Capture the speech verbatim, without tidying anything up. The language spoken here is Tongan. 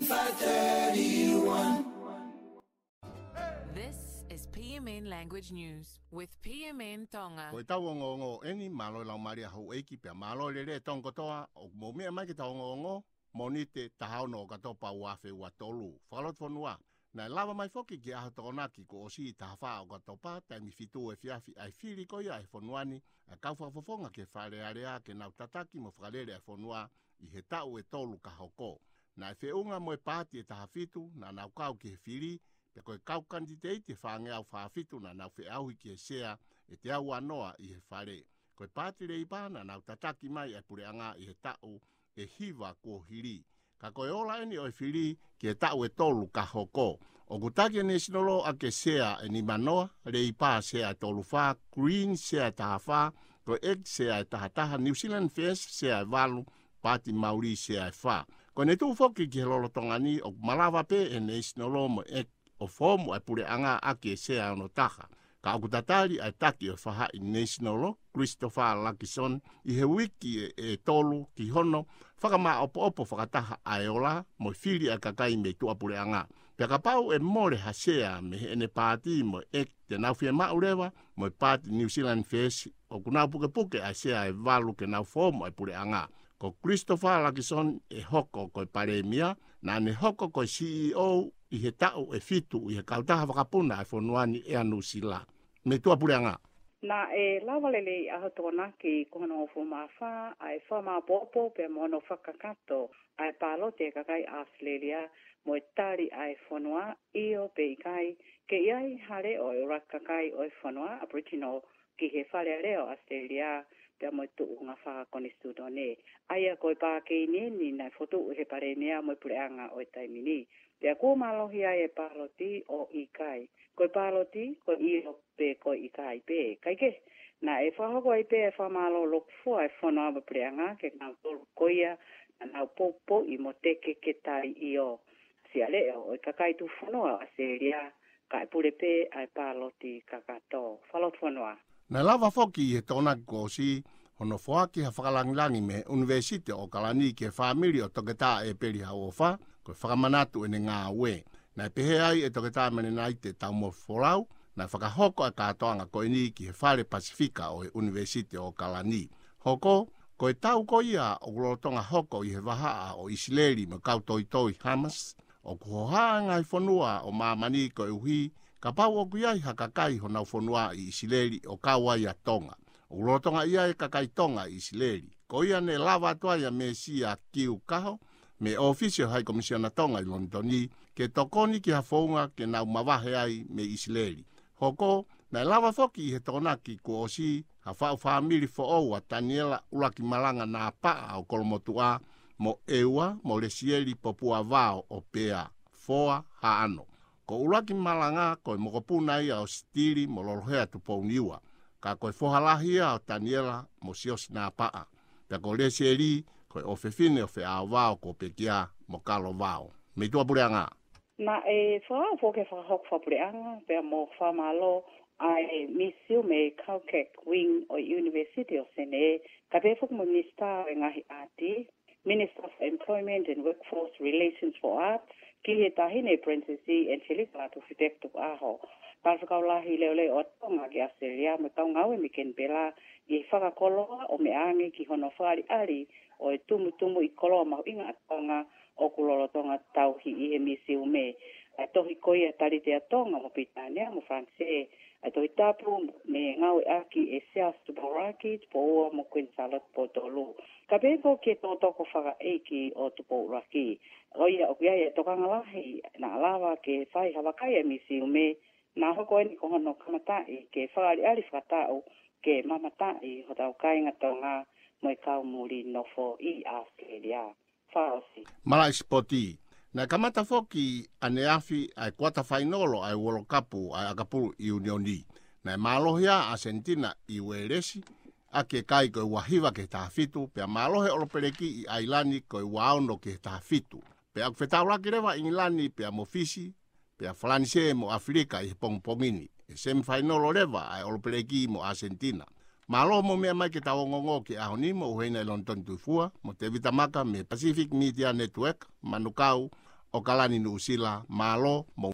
Five thirty-one. This is P M N Language News with P M N Tonga. Ko ʻetau ongoongo eni, mālō e laumālie ʻa houʻeiki pea mālō e lelei ʻa e Tonga kotoa ʻoku mou meʻa mai ki heʻetau ongoongo Mōnite taha ono ʻOkatopa ua afe ua tolu. Fakalotofonua. Naʻe lava mai foki ki he ʻaho Tokonaki kuo ʻosi, taha fā ʻOkatopa, taimi fitu efiafi, ʻa e fili ko ia ʻa e fonua ni ʻa e kau fakafofonga ki he Fale Alea ke nau tataki mo fakalele ʻa e fonua ʻi he taʻu ʻe tolu ka hoko. Naʻe feʻunga mo e paati ʻe taha fitu naʻa nau kau ki he fili, pea ko e kau kanititeiti ʻe fāngeau fā fitu naʻa nau feʻauhi ki he sea ʻe teau ua noa ʻi he Fale. Ko e paati Leipa naʻa nau tataki mai ʻa e puleʻanga ʻi he taʻu ʻe hiva kuo hili. Ka ko e ola eni ʻo e fili ki he taʻu ʻe tolu ka hoko. ʻOku taki ʻe Nēsinolo ʻaki e sea ʻe nima noa, Leipa sea ʻe tolu fā, Green sea ʻe taha fā, ko e ʻEki sea ʻe taha taha, New Zealand First sea ʻe valu, Paati Mauli sea ʻe fā. Ko ʻene tuʻu foki ki he lolotonga ni ʻoku malava pē ʻe Nēsinolo mo e ʻEki ʻo foomu ʻa e puleʻanga ʻaki e sea ʻe ono taha. Ka ʻoku tatali ʻa e taki ʻo e faʻahi Nēsinolo, Christopher Luxon, ʻi he uike ʻe, ʻe tolu ki hono fakamāʻopoʻopo fakataha ʻa e ola mo e fili ʻa e kakai mei tuʻapuleʻanga. Pea kapau ʻe mole ha sea mei heʻene paati mo e ʻEki, te nau fiemaʻu leva mo e paati New Zealand First ʻoku nau pukepuke ʻa e sea ʻe valu ke nau foomu ʻa e puleʻanga. Ko Christopher Luxon ʻe hoko ko e palēmia, naʻa ne hoko ko e C E O ʻi he taʻu ʻe fitu ʻi he kautaha vakapuna ʻa e fonua ni, ʻEa Nuʻusila, mei tuʻapuleʻanga. Naʻe lava lelei ʻaho Tokonaki kuo honohongofulu mā fā ʻa e fakamāʻopoʻopo pea mo hono fakakakato ʻa e pāloti ʻa e kakai ʻAositelēlia mo e tali ʻa e fonua, ʻio pe ʻikai, ke ʻi ai ha leʻo ʻa e ʻuluaki kakai ʻo e fonua Aboriginal ki he Fale Alea ʻo ʻAositelēlia pea mo e tuʻunga fakakonisitūtone. ʻA ia ko e pākeni eni naʻe fokotuʻu ʻe he palēmia mo e puleʻanga ʻo e taimi ni. Pea kuo mālohi ai e pāloti ʻo ʻikai. Ko e pāloti, ko e ʻio pe ko e ʻikai pē. Kaekehe, naʻe fakahoko ai pē e fakamālō lokufua ʻa e fonua mo e puleʻanga kiate kinautolu ko ia naʻa nau poupouʻi mo teke ke tali ʻio. Sea leʻo ʻo e kakai tufunua ʻo ʻAositelēlia, kae pule pē ʻa e pāloti kakato. Fakalotofonua. Naʻe lava foki ʻi he Tokonaki kuo ʻosi hono foaki ha fakalāngilangi mei he ʻUnivēsiti ʻo ʻOkalani ki he fāmili ʻo Toketā ʻEpeli Hauʻofa, ko e fakamanatu ʻene ngāue. Naʻe pehē ai ʻe Toketā Melenaite Taumoefe Folau, naʻe fakahoko ʻa e kātoanga ko eni ki he Fale Pasifika ʻo e ʻUnivēsiti ʻo ʻOkalani. Hoko, ko e tau ko ia ʻoku lolotonga hoko ʻi he vahaʻa ʻo ʻIsileli mo e kau toitoi Hamas, ʻoku hohaʻa e ngaahi fonua ʻo māmani koeʻuhi kapau ʻoku ʻi ai ha kakai honau fonua ʻi ʻIsileli ʻo kau ai ʻa Tonga. ʻOku lolotonga ʻi ai e kakai Tonga ʻi ʻIsileli. Ko ia ne lava atu ai ʻa Mesia Kiu Kaho, mei he ʻōfisi ʻo e Hai Komisiona Tonga ʻi Lonitoni, ke tokoni ki ha founga ke nau mavahe ai mei ʻIsileli. Hoko, naʻe lava foki ʻi he Tokonaki kuo ʻosi ha faʻu fāmili foʻou, ʻa Taniela ʻUluaki Malanga Napaʻa ʻo Kolomotuʻa, mo ʻEua mo Lesieli Popua Vao ʻo Pea, Foa, Haʻano. Ko ʻUluaki Malanga ko e mokopuna ia ʻo Sitili mo Lolohea Tupouniua. Ka ko e foha lahi ia ʻo Taniela mo Siosi Napaʻa. Pea ko Lesieli ko e ʻofefine ʻo Feʻao Vao, ko Pekia mo Kalo Vao, mei tuʻapuleʻanga. Naʻe fakahoko e fakahoko fakapuleʻanga pea mo fakamālō ʻa e Misiume Caucac Wing ʻo e University of Senē, kae pehē foki mo e Minisitā ʻo e Ngaahi ʻAti, Minister for Employment and Workforce Relations for Arts, ki he Taʻahine Princess Angelica Latufipeku Tukuʻaho. Talafekau Lahi Leʻoleʻo ʻa Tonga ki ʻAositelēlia mo e kau ngāue mei Kenipela, ʻi he fakakoloa ʻo meʻa ange ki hono fakaʻaliʻali ʻo e tumutumu ʻi koloa mahuʻinga ʻa Tonga ʻoku lolotonga tauhi ʻi he misiume. ʻA e tohi ko ia Talite ʻa Tonga mo Pilitānia mo Falanisē, ʻa e Tohi Tapu ne ngāueʻaki ʻe Siaosi Tupou ʻUluaki, Tupou Ua mo Kuini Sālote Tupou Tolu. Kae pehē foki ki he tokotoko fakaʻeiki ʻo Tupou ʻUluaki. ʻA ia ʻoku ʻi ai e tokanga lahi naʻa lava ke fai ha vakai ʻa e misiume, naʻa hoko eni ko hono kamataʻi ke fakaʻaliʻali fakataʻu ke mamataʻi hotau kāinga Tonga mo e kau muli nofo ʻi ʻAositelēlia. Fakaʻosi. Malaʻe sipoti. Naʻe kamata foki ʻaneafi ʻa e kuata fainolo ʻa e Uolo Kapu ʻa e ʻAkapulu ʻIunioni. Naʻe mālohi ʻa ʻAsenitina ʻi Uēlesi ʻaki e kai ko e ua hiva ki he taha fitu, pea mālohi e ʻolopeleki ʻi ʻAilani ko e ua ono ki he taha fitu. Pea ʻoku fetaulaki leva ʻa ʻIngilani pea mo Fisi, pea Falanisē mo ʻAfilika ʻi he pongipongi ni. ʻE semifainolo leva ʻa e ʻolopeleki mo ʻAsenitina. Mālō hoʻomou meʻa mai ki heʻetau ongoongo ki he ʻaho ni, mo ʻUhena ʻi Lonitoni Tuʻifua, mo Tevita Maka mei he Pacific Media Network, Manukau, ʻAokalani, Nuʻusila. Mālō mo